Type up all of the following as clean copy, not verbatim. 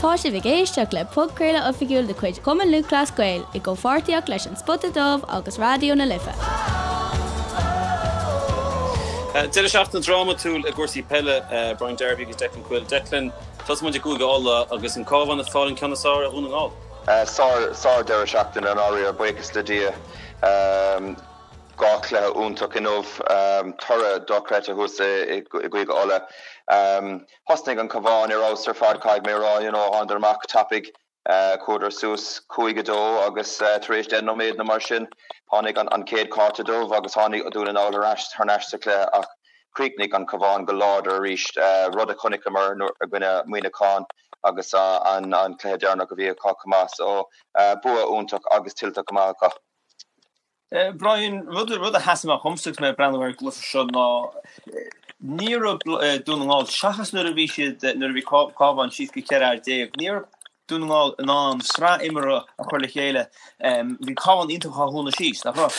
Tá sibh ag éisteacht le podchraoladh oifigiúil de chuid Chumann Lúthchleas Gael i gcomhpháirtíocht leis An Spota Dubh agus Raidió na Life. Deireadh seachtaine drámatúil i gcúrsaí peile, Brian Darby agus Declan Quill. Declan, tosóidh muid i gCúige Uladh agus an Cabhán ag fáil an ceann is fearr ar Dhún na nGall. Sár, sár deireadh seachtaine i ndáiríre, buíochas le Dia. 2 chluiche iontach inniu, toradh dochreidte thuas i gCúige Uladh. Thosnaigh an Cabhán ar fheabhas ar fad, caithfidh mé a rá, you know, thánadar amach tapaidh, chuadar suas 5-2 agus tar éis 10 nóiméad nó mar sin tháinig an chéad chárta dubh agus tháinig Dún na nGall thar n-ais sa chluiche ach chríochnaigh an Cabhán go láidir arís, rud a chonaiceamar i gcoinne Muineachán agus an cluiche deireanach a bhí acu chomh maith. So bua iontach agus tuillte go maith acu. Brian, rud a sheas amach dhomsa agus mé ag breathnú ar an gcluiche seo ná ní raibh Dún na nGall, seachas nuair a bhí siad, nuair a bhí Cabhán síos go 14 fhear, ní raibh Dún na nGall in ann sraith imeartha a chur le chéile. Bhí Cabhán iontach á dhúnadh síos, nach raibh?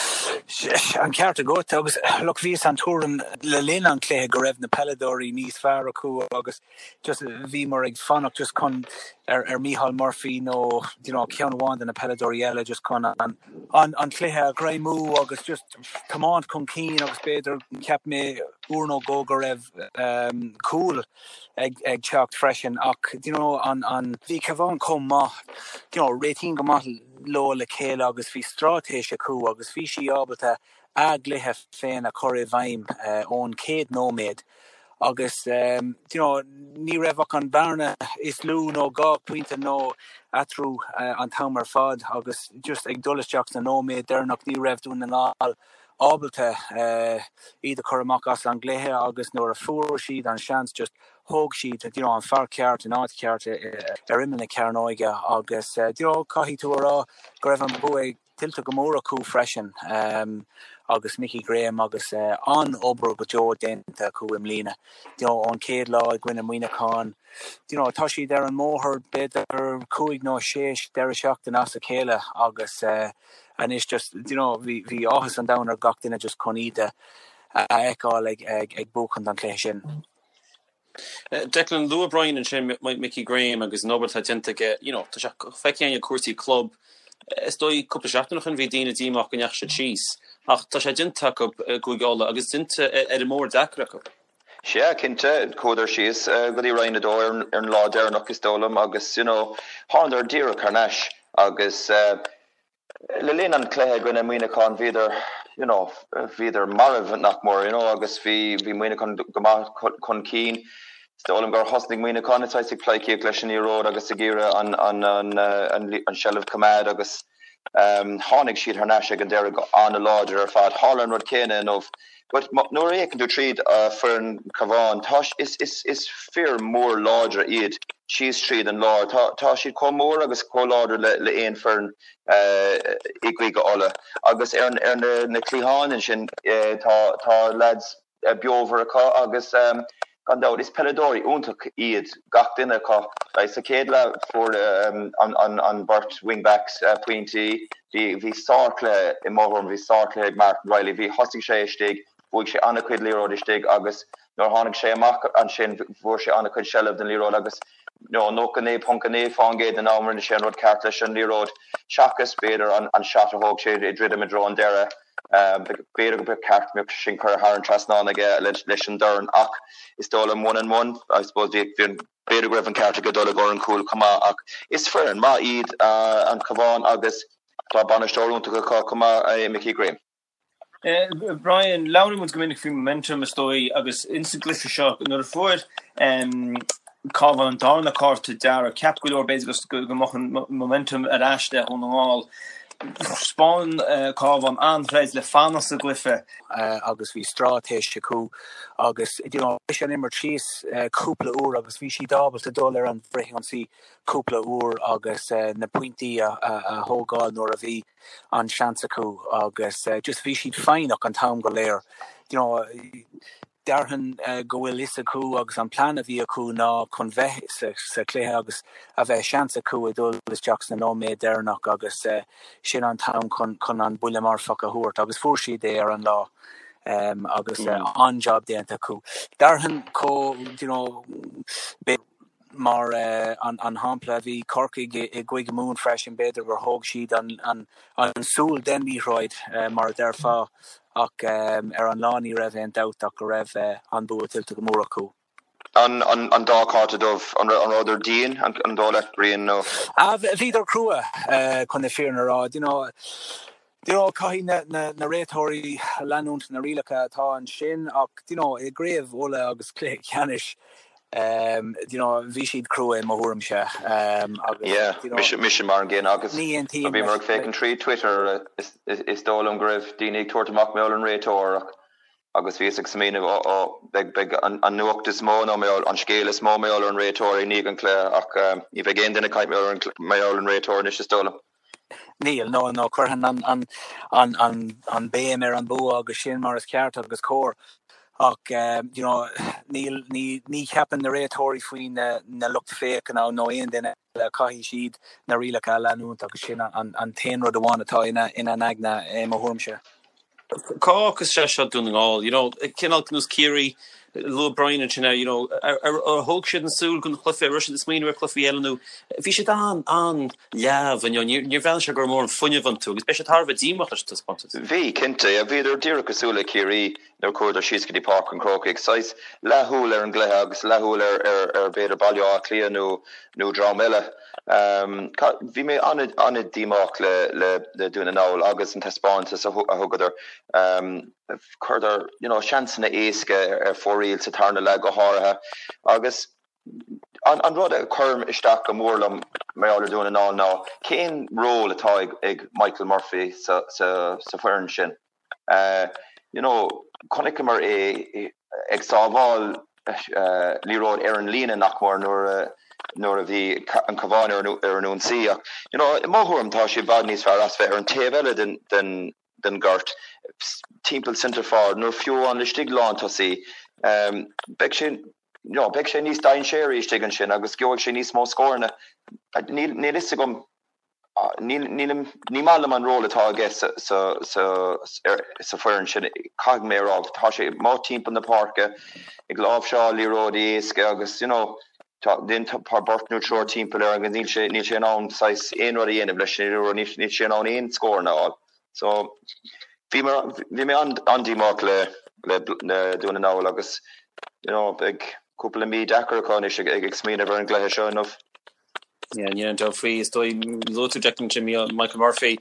An ceart agat agus look bhíos den tuairim le linn an chluiche go raibh na peileadóirí níos fearr acu agus just bhíomar ag fanacht just chun ar ar Micheál Murphy nó you know ceann amháin de na peileadóirí eile just chun an an an cluiche a ghreimú agus just tiomáint chun cinn agus b'fhéidir cheap mé uair nó dhó go raibh um, cúl ag ag teacht freisin ach you know an an bhí Cabhán chomh maith you know réitíonn go maith leo le chéile agus bhí straitéis acu agus bhí sí ábalta a gcluiche féin a chur i bhfeidhm ón chéad nóiméad agus you know ní raibh ach an bhearna is lú nó 2 phointe nó eatarthu an t-am ar fad agus just ag dul isteach sna nóiméid deireanach ní raibh Dún na nGall ábalta iad a chur amach as an gcluiche agus nuair a fuair siad an seans just thóg siad you know an fear ceart in áit cheart ar imeall na cearnóige agus you know caithfidh tú a rá go raibh an bua ag tuillte go mór acu freisin agus Mickey Graham agus an-obair go deo déanta acu i mbliana. You know, ón chéad lá i gcoinne Muineachán, you know, tá siad ar an mbóthar b'fhéidir cúig nó sé deireadh seachtaine as a chéile agus anois just, you know, bhí, bhí áthas an domhain ar gach duine just chun iad a fheiceáil ag, ag, ag buachan an chluiche sin. Declan, luaigh Brian ansin Mickey Graham agus an obair atá déanta aige, you know, tá sé feicthe againn i cúrsaí club, is dóigh cúpla seachtain ó shin bhí daoine díomách go ndeachaigh siad síos, ach tá sé déanta acu i gCúige Uladh agus déanta ar an mbóthar deacair acu. Sea, cinnte, chuadar síos go dtí Roinn 2 ar an lá deireanach is dóigh liom agus, you know, thánadar díreach thar n-ais agus, Le linn an chluiche i gcoinne Muineachán bhíodar you know bhíodar marbh nach mór you know agus bhí bhí Muineachán go maith chun cinn. Is dóigh liom gur thosnaigh Muineachán saghas ag pleidhcíocht leis an liathróid agus ag iarraidh an an an an an seilbh choimeád agus tháinig siad thar n-ais ag an deireadh go an-láidir ar fad. Tharla an rud céanna inniu. But nuair a fhéachann tú tríd foireann Cabhán, tá is is is fir mór láidre iad síos tríd an lár. Tá tá siad chomh mór agus chomh láidir le le aon foireann i gCúige Uladh. Agus ar ar na na cliatháin ansin tá tá lads beomhar acu agus gan dabht is peileadóirí iontach iad gach duine acu. Like sa chéad leath fuair an an an beirt wing backs pointí. Bhí, bhí sárchluiche, i mo thuairim, bhí sárchluiche ag Martin Reilly. Bhí, thosaigh sé istigh, bhuaigh sé an-chuid liathróid istigh agus nuair a tháinig sé amach ansin fuair sé an-chuid seilbh den liathróid agus you know 99.9% den am rinne sé an rud ceart leis an liathróid seachas b'fhéidir an, an shot a thóg sé ag druidim i dtreo an deireadh. B'fhéidir go mba cheart go mbeadh sin curtha thar an trasnán aige leis an dorn ach is dóigh liom one and one, I suppose bhí, bhí an, B'fhéidir go raibh an ceart aige dul i gcomhair an chúil chomh maith ach is foireann maith iad an Cabhán agus tá bainisteoir iontach acu chomh maith i Mickey Graham. Brian, labhraíonn muid go minic faoi momentum is dóigh agus ins an gcluiche seo nuair a fuair Cabhán an darna cárta dearg, cheap go leor b'fhéidir go mbeadh an momentum ar ais le Dhún na nGall. Thaispeáin Cabhán an-throid le fanacht sa gcluiche. agus bhí straitéis acu agus you know bhris an imirt síos cúpla uair agus bhí siad ábalta dul ar an bhfrithionsaí cúpla uair agus na pointí a thógáil nuair a bhí an seans acu agus just bhí siad foighneach an t-am go léir you know Déarfainn go bhfuil fhios acu agus an plean a bhí acu ná chun bheith sa chluiche agus a bheith seans acu ag dul isteach sna nóiméid deireanach agus sin an t-am chun chun an buille marfach a thabhairt agus fuair siad é ar an lá agus an-jab déanta acu. Déarfainn chomh you know. Mar an shampla, bhí Corcaigh i gCúige Mumhan freisin, b'fhéidir gur thóg siad an súil den liathróid, mar a déarfá, ach ar an lá ní raibh aon dabht ach go raibh an bua tuillte go mór acu. An dá chárta dubh, an rabhadar dian, an dóigh leat, Brian, nó? Bhíodar crua, chun na fírinne a rá. You know, caithfidh na réiteoirí leanúint na rialacha atá ansin ach, you know, i gCraobh Uladh agus cluiche ceannais, you know, bhí siad crua i mo thuairimse agus, Yeah, you know, mise, mise mar an gcéanna agus ní aontaím bhíomar ag féachaint trí Twitter, is dóigh liom go raibh daoine ag tabhairt amach mar gheall ar an réiteoir ach agus bhíos ag smaoineamh, ó, ó, beidh, beidh an, an nuacht is mó nó mar gheall, an scéal is mó mar gheall ar an réiteoir i ndiaidh an chluiche ach ní bheidh aon duine ag caint mar gheall ar an, mar gheall ar an réiteoir anois is dóigh liom. Níl, no, no, cuireann an, an, an, an béim ar an bua agus sin mar is ceart agus cóir ach you know, níl, ní, ní cheapann na réiteoirí faoi na, na lucht féachana nó aon duine eile, caithfidh siad na rialacha a leanúint agus sin an, an t-aon rud amháin atá ina, ina n-aigne i mo thuairimse. Cá fhágfas sé seo Dún na nGall? You know, cineál nós Ciarraí, luaigh Brian ansin é, you know, ar thóg siad an súil den chluiche, ar raibh siad ag smaoineamh ar chluichí eile nó bhí siad an-leamh inniu, níor bhreathnaigh sé go raibh mórán fuinnimh iontu agus beidh siad thar a bheith díomách leis an taispeántas. Bhí, cinnte. Bhíodar díreach cosúil le Ciarraí nuair a chuadar síos go dtí Páirc an Chrócaigh. Saghas leathshúil ar an gcluiche agus leathshúil ar, ar b'fhéidir Baile Átha Cliath nó, nó dream eile. Bhí mé an-díomách le Dún na nGall agus an taispeántas a thugadar. Chuireadar you know seansanna éasca ar fóraoil sa tarna leath go háirithe agus an rud a chuireann isteach go mór liom mar gheall ar Dún na nGall ná cén ról atá ag Michael Murphy sa foireann sin. You know, chonaiceamar é ag sábháil liathróid ar an líne nach mór nuair a nuair a bhí an Cabhán ar ar an ionsaí ach you know, i mo thuairim tá sé i bhfad níos fearr as bheith ar an taobh eile den den den gort timpeall centre forward nó fiú amháin laistigh lántosaí. Beidh sé you know, beidh sé níos dainséaraí istigh ansin agus gheobhaidh sé níos mó scóranna. Níl níl fhios agam Níl, nílim, ní maith liom an ról atá aige sa, sa, sa, sa foireann sin, caithfidh mé a rá. Tá sé amuigh timpeall na páirce ag láimhseáil liathróidí éasca agus, you know, tá, tá beirt nó triúr timpeall air agus níl sé, níl sé in ann saghas aon rud a dhéanamh leis an liathróid, níl, níl sé in ann aon scóranna a fháil. So, bhí mé, bhí mé an-díomách le, le, le Dún na nGall agus, you know, beidh cúpla mí deacair acu anois ag, ag, ag smaoineamh ar an gcluiche seo inniu. Yeah, níl aon dabht faoi. Is dóigh, luaigh tú Declan ansin, Michael Murphy,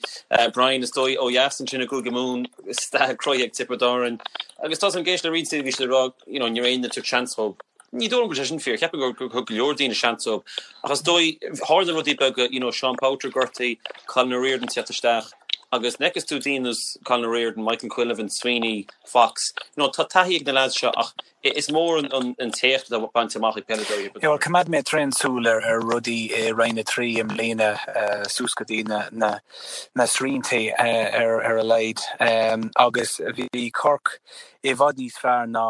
Brian, is dóigh ó dheas ansin i gCúige Mumhan, stathadh croí ag Tiobraid Árann. Agus tá an géis le roinnt bhí siad ag rá, you know, ní raibh aon duine ag tabhairt seans dóibh. Ní dóigh liom go bhfuil sé sin fíor, cheapfainn gur thug go leor daoine seans dóibh. Ach is dóigh, tharla rudaí beaga, you know, Sean Powter gortaithe, Colin O'Riordan teacht isteach, agus nuair a fheiceas tú daoine ar nós Colin O'Riordan, Michael Quinlivan, Sweeney, Fox, you know, tá taithí ag na lads seo ach Is mór an t-éacht atá bainte amach ag peileadóirí Thiobraid Árann. Choimeád mé tréan súil ar rudaí i Roinn 3 i mbliana suas go dtí na srianta ar a laghad agus bhí Cork i bhfad níos fearr ná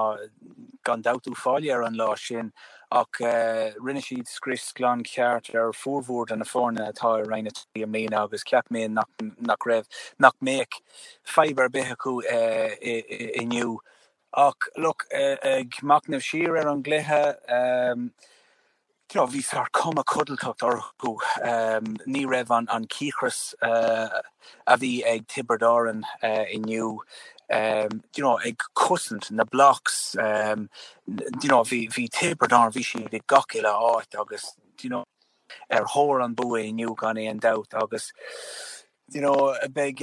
gan dabht Uíbh Fhailí ar an lá sin ach rinne siad scrios glan ceart ar fhormhór de na foirne atá i Roinn 3 i mbliana agus cheap mé nach raibh, nach mbeadh fadhb ar bith acu inniu. Ach look, ag machnamh siar ar an gcluiche, you know, bhí sórt cuma codlatach orthu. Ní raibh an cíocras a bhí ag Tiobraid Árann inniu, you know, ag cosaint na blocks, you know, bhí bhí Tiobraid Árann, bhí siad i gach uile áit agus, you know, ar thóir an bua inniu gan aon dabht agus, you know, beidh,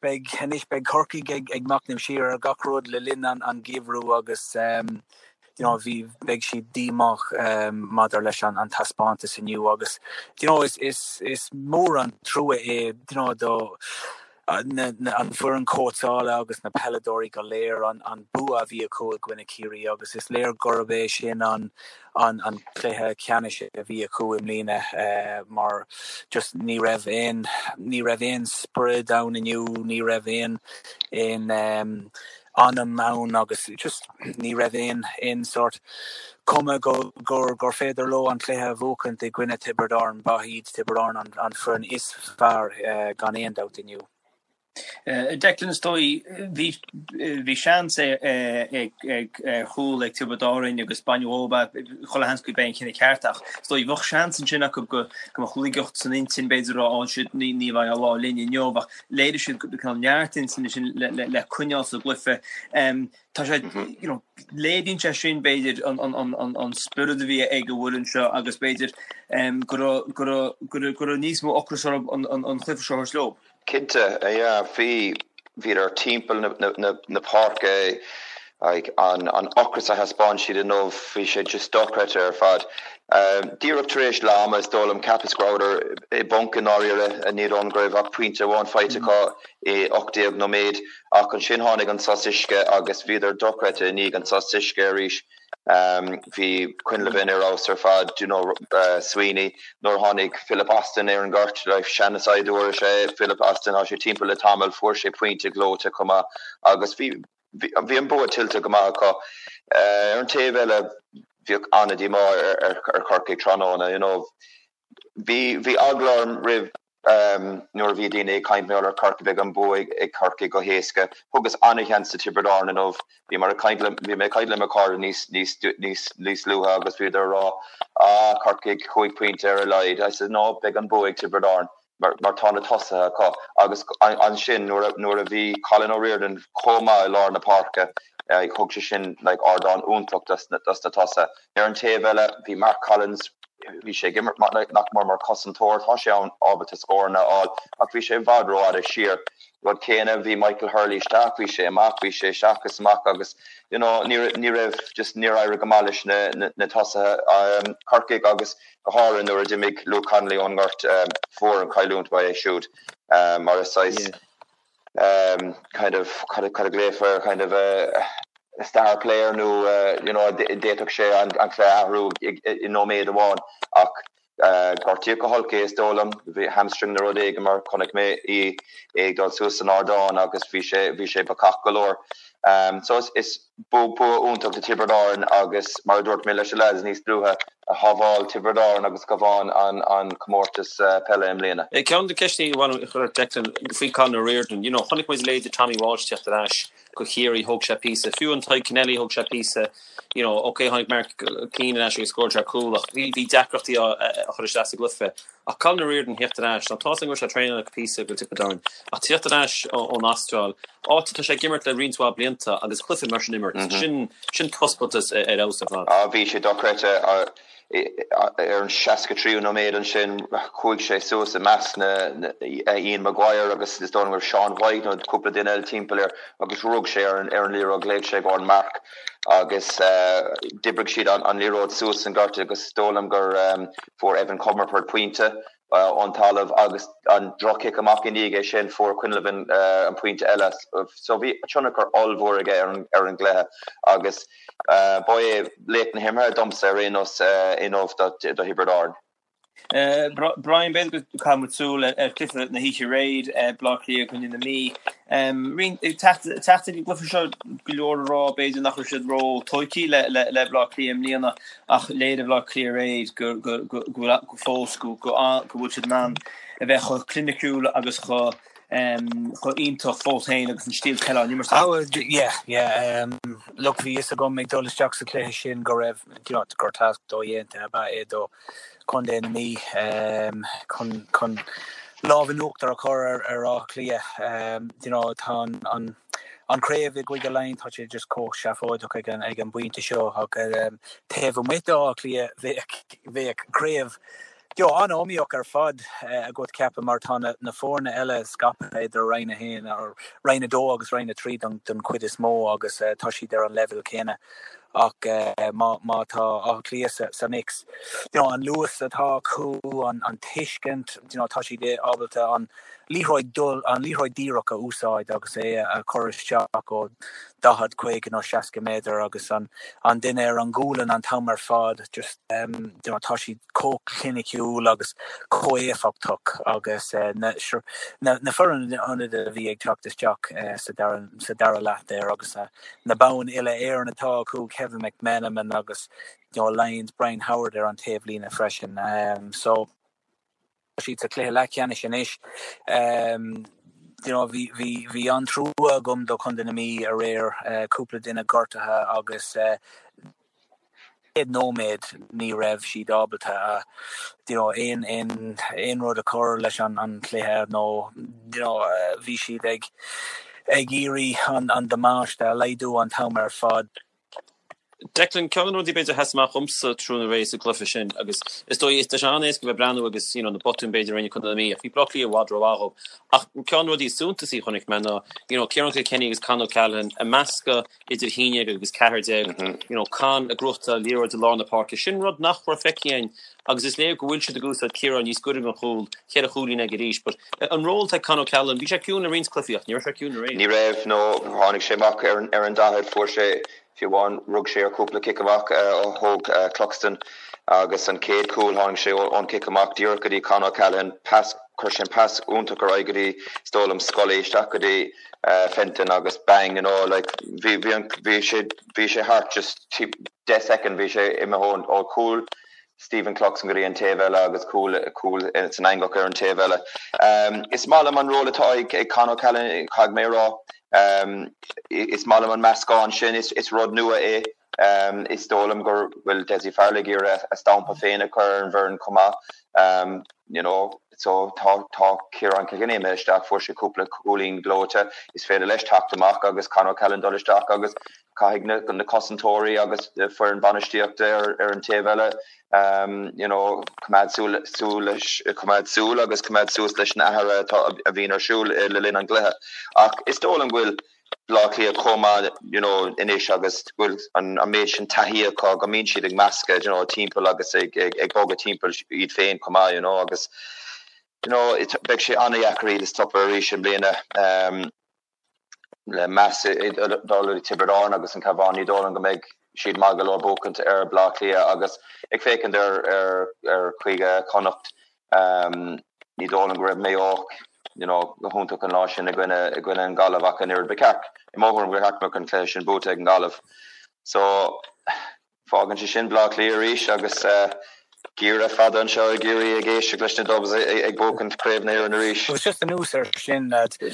beidh, anois beidh Corcaigh ag, ag machnamh siar ar gach rud le linn an, an geimhreadh agus you know, bhí, beidh siad díomách maidir leis an, an taispeántas inniu agus you know, is, is, is mór an trua é you know, do na, na, an foireann cóitseála agus na peileadóirí go léir an, an bua a bhí acu i gcoinne Ciarraí agus is léir gurb é sin an, an an cluiche ceannais a bhí acu i mbliana mar just ní raibh aon ní raibh aon sprid ann inniu, ní raibh aon aon anam ann agus just ní raibh aon aon sort cuma go gur gur féidir leo an cluiche a bhuachaint i gcoinne Tiobraid Árann. Ba iad Tiobraid Árann an an foireann is fearr gan aon dabht inniu. Declan, is dóigh, bhí bhí seans ag ar chúl ag Tiobraid Árainn agus baineadh dhóibh é, chuile sheans gurb é an cinneadh ceart ach is dóigh bheadh seans ansin acu go go mbeadh laigeacht san intinn b'fhéidir a rá á siad ní ní bheidh an lá linn inniu ach léirigh siad cineál neart intinne sin le le le coinneáil sa gcluiche. Tá sé you know léiríonn sé sin b'fhéidir an an an an an spiorad a bhí ag an bhfoireann seo agus b'fhéidir go raibh go raibh go raibh go raibh níos mó ocrais orthu an an an cluiche seo a thabhairt leo. Cinnte, yeah, bhí, bhíodar timpeall na páirce, like, an ocras a thaispeáin siad inniu, bhí sé just dochreidte ar fad. Díreach tar éis leath ama, is dóigh liom, cheapas go rabhadar i bponc i ndáiríre, ní dóigh liom go raibh ach pointe amháin faighte acu i 18 nóiméad, ach ansin tháinig an sos uisce agus bhíodar dochreidte i ndiaidh an sos uisce arís. Bhí Quinlivan ar fheabhas ar fad, you know, Sweeney, nuair a tháinig Philip Austin ar an ngort, like, seana-saighdiúir is ea é Philip Austin, tá sé timpeall le tamall, fuair sé pointe gleoite chomh maith agus bhí, bhí an bua tuillte go maith acu. Ar an taobh eile, bheadh an-díomá ar Chorcaigh tráthnóna, you know. Bhí, bhí eagla orm roimh Nuair a bhí daoine ag caint mar gheall ar Chorcaigh, beidh an bua ag Corcaigh go héasca. Thugas an-sheans do Tiobraid Árann inniu. Bhí mar ag caint le, bhí mé ag caint le mo chairde níos, níos, níos, níos luaithe agus bhíodar ag rá, ah, Corcaigh, chúig phointe ar a laghad. I said, no, beidh an bua ag Tiobraid Árann mar, mar tá na tosaithe acu. Agus ansin nuair a, nuair a bhí Colin O'Riordan chomh maith i lár na páirce, thug sé sin like ardán iontach dos na, dos na tosaithe. Ar an taobh eile, bhí Mark Collins, bhí sé ag imirt nach mór mar chosantóir, tá sé ann ábalta scóranna a fháil ach bhí sé i bhfad rófhada siar. Rud céanna, bhí Michael Hurley isteach, bhí sé amach, bhí sé isteach is amach agus you know ní ní raibh just níor éirigh go maith leis na na na tosaithe Corcaigh agus go háirithe nuair a d'imigh Luke Connolly ón ngort fuair an chailliúint ba é siúd mar is saghas kind of cad a ghlaofar air kind of a star player nó you know d'fhéadfadh sé an cluiche a athrú i nóiméad amháin ach gortaíodh go holc é is dóigh liom, bhí hamstring nó rud éigin mar chonaic mé é ag dul suas san ardán agus bhí sé bhí sé bacach go leor. So is is bua iontach do Tiobraid Árann agus mar a dúirt mé leis na lads níos luaithe, shábháil Tiobraid Árann agus Cabhán an comórtas peile i mbliana. Ceann de na ceisteanna a bhain a chur Declan faoi Colin O'Riordan, you know, chonaic muid leithéide Tommy Walsh teacht ar ais go Chiarraí, thóg sé píosa, fiú an Tadhg Kennelly thóg sé píosa, you know, ok tháinig Mark Keane ar ais agus scóráil sé cúl ach bhí bhí deacrachtaí á chur isteach sa gcluiche. Ach Colin O'Riordan theacht ar ais, now tá 's agam go raibh sé ag traenáil píosa go Tiobraid Árann, ach teacht ar ais ón Astráil, áit atá sé ag imirt le roinnt mhaith blianta agus cluiche mar sin a imirt, sin, sin taispeántas ar fheabhas ar fad. Ah bhí sé dochreidte ar an 63ú nóiméad ansin, chuaigh sé suas i measc na, Ian Maguire agus is dóigh liom go raibh Sean White nó cúpla duine eile timpeall air agus rug sé ar an liathróid, ghlaoigh sé i gcomhair an marc. agus d'oibrigh siad an liathróid suas an gort agus is dóigh liom gur fuair Evan Comerford pointe ón talamh agus an droch-chic amach i ndiaidh é sin fuair Quinlivan an pointe eile. So bhí tionchar ollmhór aige ar an gcluiche agus ba é laoch na himeartha domsa ar aon nós inniu do Thiobraid Árann. Brian, b'fhéidir go gcaithfidh muid súil ar chluiche na hoíche aréir, Baile Átha Cliath i gcoinne na Mí. Teacht ag an gcluiche seo go leor ag rá b'fhéidir nach raibh siad ró-tógtha le Baile Átha Cliath i mbliana ach léirigh Baile Átha Cliath aréir go go fós go bhfuil siad in ann a bheith chomh cliniciúil agus chomh iontach fós féin agus an stíl peile á n-imirt acu. Yeah, yeah. Look, bhí fhios agam ag dul isteach sa chluiche sin go raibh, you know, gur tasc dodhéanta ab ea é do Chontae na Mí chun chun lámh in uachtar a chur ar ar Áth Cliath. You know, tá an an an craobh i gCúige Laighean tá sé just chomh seafóideach ag an ag an bpointe seo ach taobh amuigh d'Áth Cliath bheadh bheadh craobh you know, an-iomaíoch ar fad agat ceapaim mar tá na na foirne eile scaipthe idir Roinn 1 or Roinn 2 agus Roinn 3 don don chuid is mó agus tá siad ar an leibhéal céanna. Ach má má tá Áth Cliath sa mix, you know, an luas atá acu, an an tuiscint, you know, tá siad ábalta an liathróid dul, an liathróid díreach a úsáid agus é a chur isteach ó 40, 50 nó 60 méadar agus an an duine ar an gualainn an t-am ar fad, just you know, tá siad chomh cliniciúil agus chomh éifeachtach agus na na na foireann ionadaithe a bhí ag teacht isteach sa dara sa dara leath there agus na boinn uile-Éireann atá acu, Kevin McMenamin agus you know Lyons, Brian Howard ar an taobhlíne freisin. So tá siad sa chluiche leathcheannais anois. You know, bhí, bhí, bhí an-trua agam do Chontae na Mí aréir, cúpla duine gortaithe agus chéad nóiméad ní raibh siad ábalta a, you know, aon, aon, aon rud a chur leis an, an chluiche nó, you know, bhí siad ag, ag iarraidh an, an damáiste a laghdú an t-am ar fad. Declan, ceann de na rudaí b'fhéidir a sheas amach dhomsa tráthnóna aréir sa gcluiche sin agus is dóigh, tá sé an-éasca bheith ag breathnú agus you know na botúin b'fhéidir a rinne Contae na Mí ach bhí Bleá Cliath i bhfad rómhaith dhóibh. Ach ceann de na rudaí is suntasaí a chonaic mé ná you know Ciarán Kilkenny agus Con O'Callaghan ag meascadh idir 11 agus 14, you know Con ag gnóthachtáil liathróid i lár na páirce, sin rud nach raibh feicthe againn agus is léir go bhfuil siad ag úsáid Ciarán níos gaire don chúl, cheithre chúilín aige arís but an ról atá ag Con O'Callaghan, bhí sé ciúin i roinnt cluichí ach ní raibh sé ciúin aréir. Ní raibh, no, tháinig sé amach ar an 40, fuair sé, fiú amháin, rug sé ar chúpla cic amach a thóg Cluxton agus an chéad chúl tháinig sé ón cic amach díreach go dtí Con O'Callaghan, pas, chuir sé an pas iontach ar aghaidh go dtí, is dóigh liom, Scully, isteach go dtí Fenton agus bang, you know, like, bhí, bhí an, bhí sé, bhí sé thart just 10 second, bhí sé imithe ó chúl Stephen Cluxton go dtí an taobh eile agus cúl, cúl san eangach ar an taobh eile. Is maith liom an ról atá ag, ag Con O'Callaghan, caithfidh mé a rá. Is maith liom an meascán sin, is, is rud nua é. Is dóigh liom go bhfuil Dessie Farrell ag iarraidh a stampa féin a chur ar an bhfoireann chomh maith. You know, so tá, tá Ciarán Kilkenny imithe isteach, fuair sé cúpla cúilín gleoite, is féidir leis teacht amach agus Con O'Callaghan dul isteach agus caithfidh na, na cosantóirí agus foireann bainistíochta ar, ar an taobh eile you know, coimeád súil, súil leis, coimeád súil agus coimeád suas leis na hathruithe atá, a bhíonn ar siúl le linn an gcluiche. Ach is dóigh liom go bhfuil Bleá Cliath chomh maith you know, anois agus go bhfuil an, an méid sin taithí acu go mbíonn siad ag meascadh you know, timpeall agus ag, ag, ag bogadh timpeall iad féin chomh maith you know, agus you know, beidh sé an-dheacair iad a stopadh arís i mbliana. Um, le meas ag dul do Tiobraid Árann agus an Cabhán, ní dóigh liom go mbeidh siad maith go leor buachaint ar Bleá Cliath agus ag féachaint ar ar Chúige Chonnacht ní dóigh liom go raibh Maigh Eo you know go hiontach an lá sin i gcoinne i gcoinne an Ghaillimh ach an oiread ba cheart i mo thuairim gur cheart go mbeadh an cluiche sin buaite ag an Ghaillimh. So Fágann sé sin Bleá Cliath arís agus geimhreadh fada anseo i gCiarraí ag éisteacht leis na Dubs ag buachaint Craobh na hÉireann arís. Agus just anuas air sin, lads, do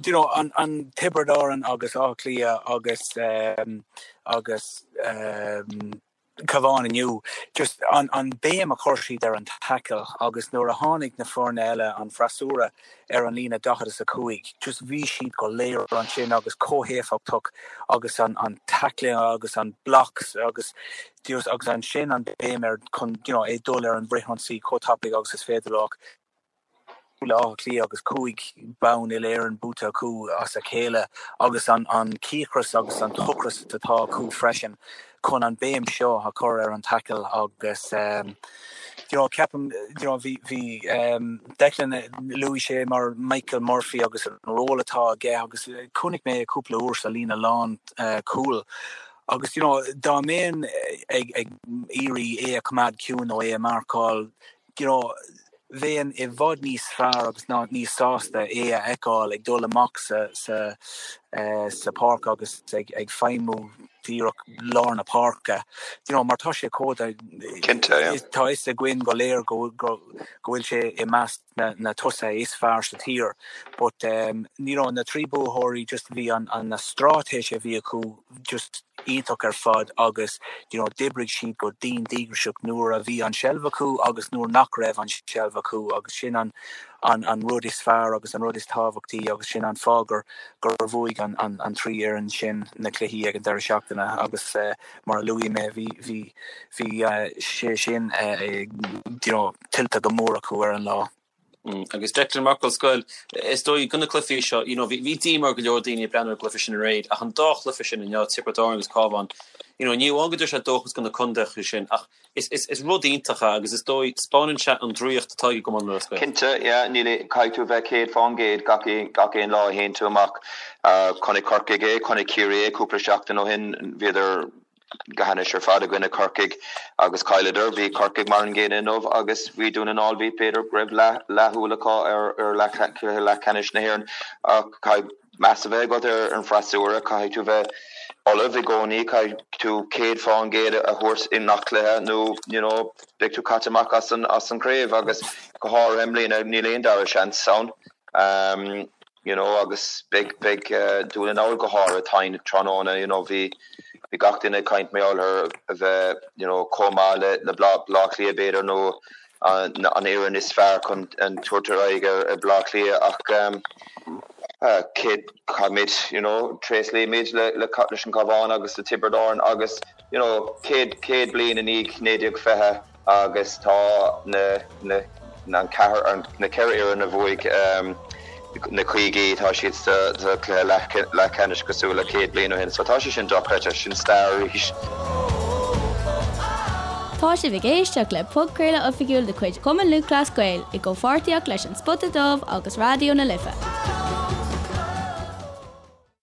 you know, an, an Tiobraid Árann agus Áth Cliath agus, agus Cabhán inniu, just an, an béim a chuir siad ar an tackle agus nuair a tháinig na foirne eile, an freasúra, ar an líne 45. Just bhí siad go léir ansin agus chomh héifeachtach agus an an tackling agus an blocks agus just agus ansin an béim ar chun you know é dul ar an bhfrithionsaí chomh tapaidh agus is féidir leo. Le Áth Cliath agus 5 bonn uile-Éireann buaite acu as a chéile agus an an cíocras agus an t-ocras atá acu freisin chun an béim seo a chur ar an tackle agus you know ceapaim you know bhí bhí Declan luaigh sé mar Michael Murphy agus an ról atá aige agus chonaic mé é cúpla uair sa líne lán cúil agus you know dá mbeinn ag ag iarraidh é a choimeád ciúin nó é a marcáil you know bheinn i bhfad níos fearr agus ná níos sásta é a fheiceáil ag dul amach sa sa sa pháirc agus ag ag feidhmiú díreach lár na páirce. You know, mar tá sé chomh Cinnte, yeah. tá fhios againn go léir go go go bhfuil sé i measc na na tosaithe is fearr sa tír. But um, you know, na trí buathóirí just bhí an an na straitéis a bhí acu just iontach ar fad agus you know d'oibrigh siad go dian díograiseach nuair a bhí an seilbh acu agus nuair nach raibh an seilbh acu agus sin an an an rud is fearr agus an rud is tábhachtaí agus sin an fáth gur gur bhuaigh an an an trí fhoireann sin na cluichí ag an deireadh seachtaine agus eh, mar a luaigh mé bhí bhí bhí eh, sé sin eh, you know tuillte go mór acu ar an lá. Agus Declan mar fhocal scoir, is dóigh do na cluichí seo, you know, bhí díomá ar go leor daoine ag breathnú ar an gcluiche sin aréir, ach an dá chluiche sin inniu, Tiobraid Árann agus Cabhán, you know, ní amháin go dtabharfaidh sé dóchas do na contaetha sin, ach is, is, is rud iontach é agus is dóigh, 'spáineann sé an draíocht atá ag an gCumann Lúthchleas Gael. Cinnte, yeah, níl, caithfidh tú a bheith 100% gach, gach aon lá a théann tú amach. Chonaic Corcaigh é, chonaic Ciarraí é cúpla seachtain ó shin, bhíodar, go hainnis ar fad i gcoinne Corcaigh agus chailleadar. Bhí Corcaigh mar an gcéanna inniu agus bhí Dún na nGall, bhí, b'fhéidir go raibh leathshúil acu ar leath leathcheannais na hÉireann ach caithfidh meas a bheith agat ar an bhfreasúra, caithfidh tú bheith ullamh i gcónaí, caithfidh tú 100% a thabhairt i ngach cluiche nó you know beidh tú caite amach as an as an chraobh agus go háirithe i mbliana níl aon dara seans ann. You know agus beidh beidh Dún na nGall go háirithe tinn tráthnóna you know bhí bhí gach duine ag caint mar gheall ar a bheith you know chomh maith le le Baile Átha Cliath b'fhéidir nó an an fhoireann is fearr chun an tabhairt ar aghaidh ar ar Baile Átha Cliath ach um céad caithfimid you know tréaslaímid le le leis an Cabhán agus le Tiobraid Árann agus you know 100 100 bliain i ndiaidh 1920 agus tá na na an ceathair an na ceithre fhoireann a bhuaigh na caogaí tá siad sa sa cluiche leath leathcheannais cosúil le 100 bliain ó shin so tá sé sin dochreidte, sin stair arís. Tá sibh ag éisteacht le podchraoladh oifigiúil de chuid Chumann Lúthchleas Gael i gcomhpháirtíocht leis An Spota Dubh agus Raidió na Life.